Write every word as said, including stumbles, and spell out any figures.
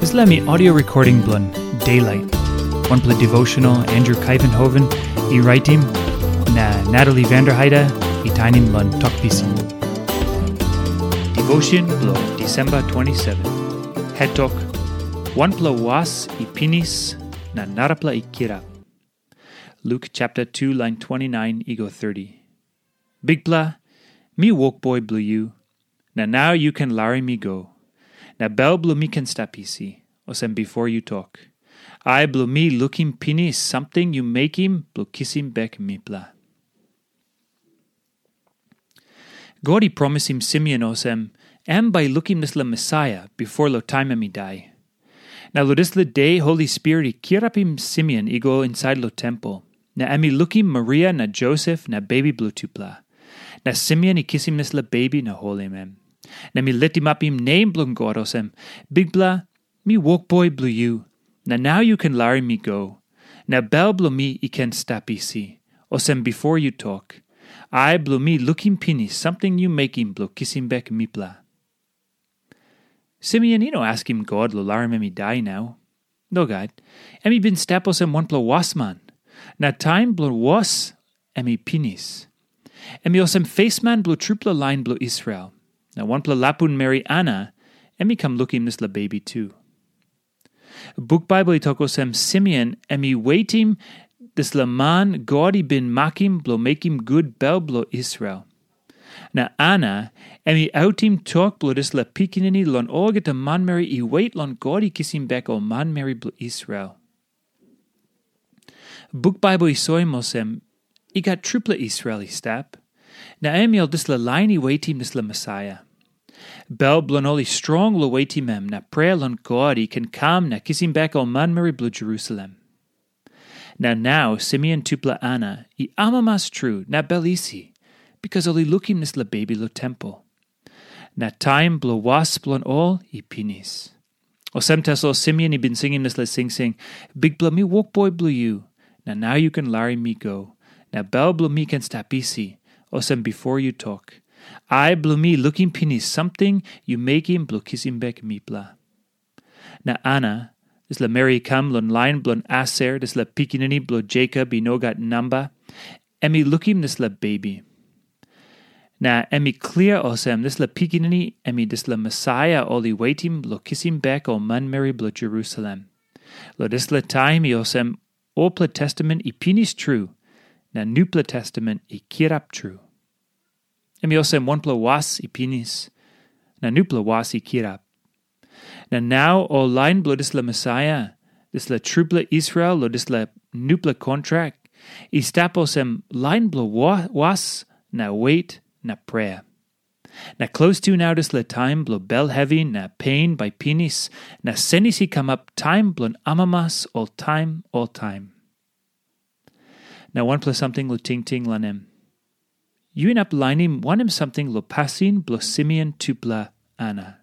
Dispela mi audio recording bilong Daylight. Wanpela devotional Andrew Kaivenhoven i raitim, na Natalie Vanderheide i tainim long Tok Pisin. Devotion bilong December twenty-seven. Head Tok, wanpela was i pinis, na narapela i kirap. Luke chapter two, line twenty-nine i go thirty. Bikpela, mi wokboi bilong yu, na nau yu ken larim mi go, na bel bilong mi ken stap isi, olsem bipo yu tok. Ai bilong mi lukim pinis samting yu mekim bilong kisim bek mipela. God i promisim Simeon olsem, em bai i lukim dispela Mesaia bipo long taim em i dai. Na long dispela de Holi Spirit i kirapim Simeon i go insait long tempel, na em i lukim Maria na Josep na bebi bilong tupela. Na Simeon i kisim dispela bebi na holim em. Na em i litimapim nem bilong God olsem, Bikpela, mi wokboi bilong yu, na nau yu ken larim mi go, na bel bilong mi i ken stap isi, olsem bipo yu tok. Ai bilong mi lukim pinis samting yu mekim bilong kisim bek mipela. Simeon i no askim God long larim em i dai nau. Nogat, em i bin stap olsem wanpela wasman, na taim bilong was em i pinis. Em i olsem fesman bilong trupela lain bilong Israel, na wanpela lapun meri Ana, em i kam lukim dispela bebi tu. Buk Bible i tok olsem Simeon em i wetim dispela man God i bin makim bilong mekim gut bel bilong Israel. Na Ana, em i autim tok bilong dispela pikinini long olgeta manmeri i wet long God i kisim bek ol manmeri bilong Israel. Buk Bible i soim olsem, i gat trupela Israel i stap, na em i ol dispela lain i wetim dispela Mesaia. Bel bilong ol i strong long wetim em, na prea long God i ken kam na kisim bek ol manmeri bilong Jerusalem. Na nau Simeon tupela Ana i amamas tru na bel isi, bikas ol i lukim dispela bebi long tempel. Na taim bilong was bilong ol i pinis. Olsem tasol Simeon i bin singim dispela singsing, Bikpela, mi wokboi bilong yu, na nau yu ken larim mi go, na bel bilong mi ken stap isi, olsem bipo yu tok. Ai bilong mi lukim pinis samting yu mekim bilong kisim bek mipela. Na Ana, dispela meri i kam long lain bilong Aser, dispela pikinini bilong Jekop i no gat namba, em i lukim dispela bebi. Na em i klia olsem dispela pikinini em i dispela Mesaia ol i wetim long kisim bek ol manmeri bilong Jerusalem. Long dispela taim i olsem olpela testament i pinis tru, na nupela testament i kirap tru. Em i olsem wanpela was i pinis, na nupela was i kirap. Na nau ol lain bilong dispela Mesaia, dispela trupela Israel long dispela nupela kontrak, i stap olsem lain bilong wa- was na wet na prea. Na klostu nau dispela taim bilong bel hevi na pen bai pinis, na senis i kamap taim bilong amamas oltaim oltaim. Na wanpela samting long tingting long em. Yu inap lainim wanem samting long pasin bilong Simeon tupela Ana.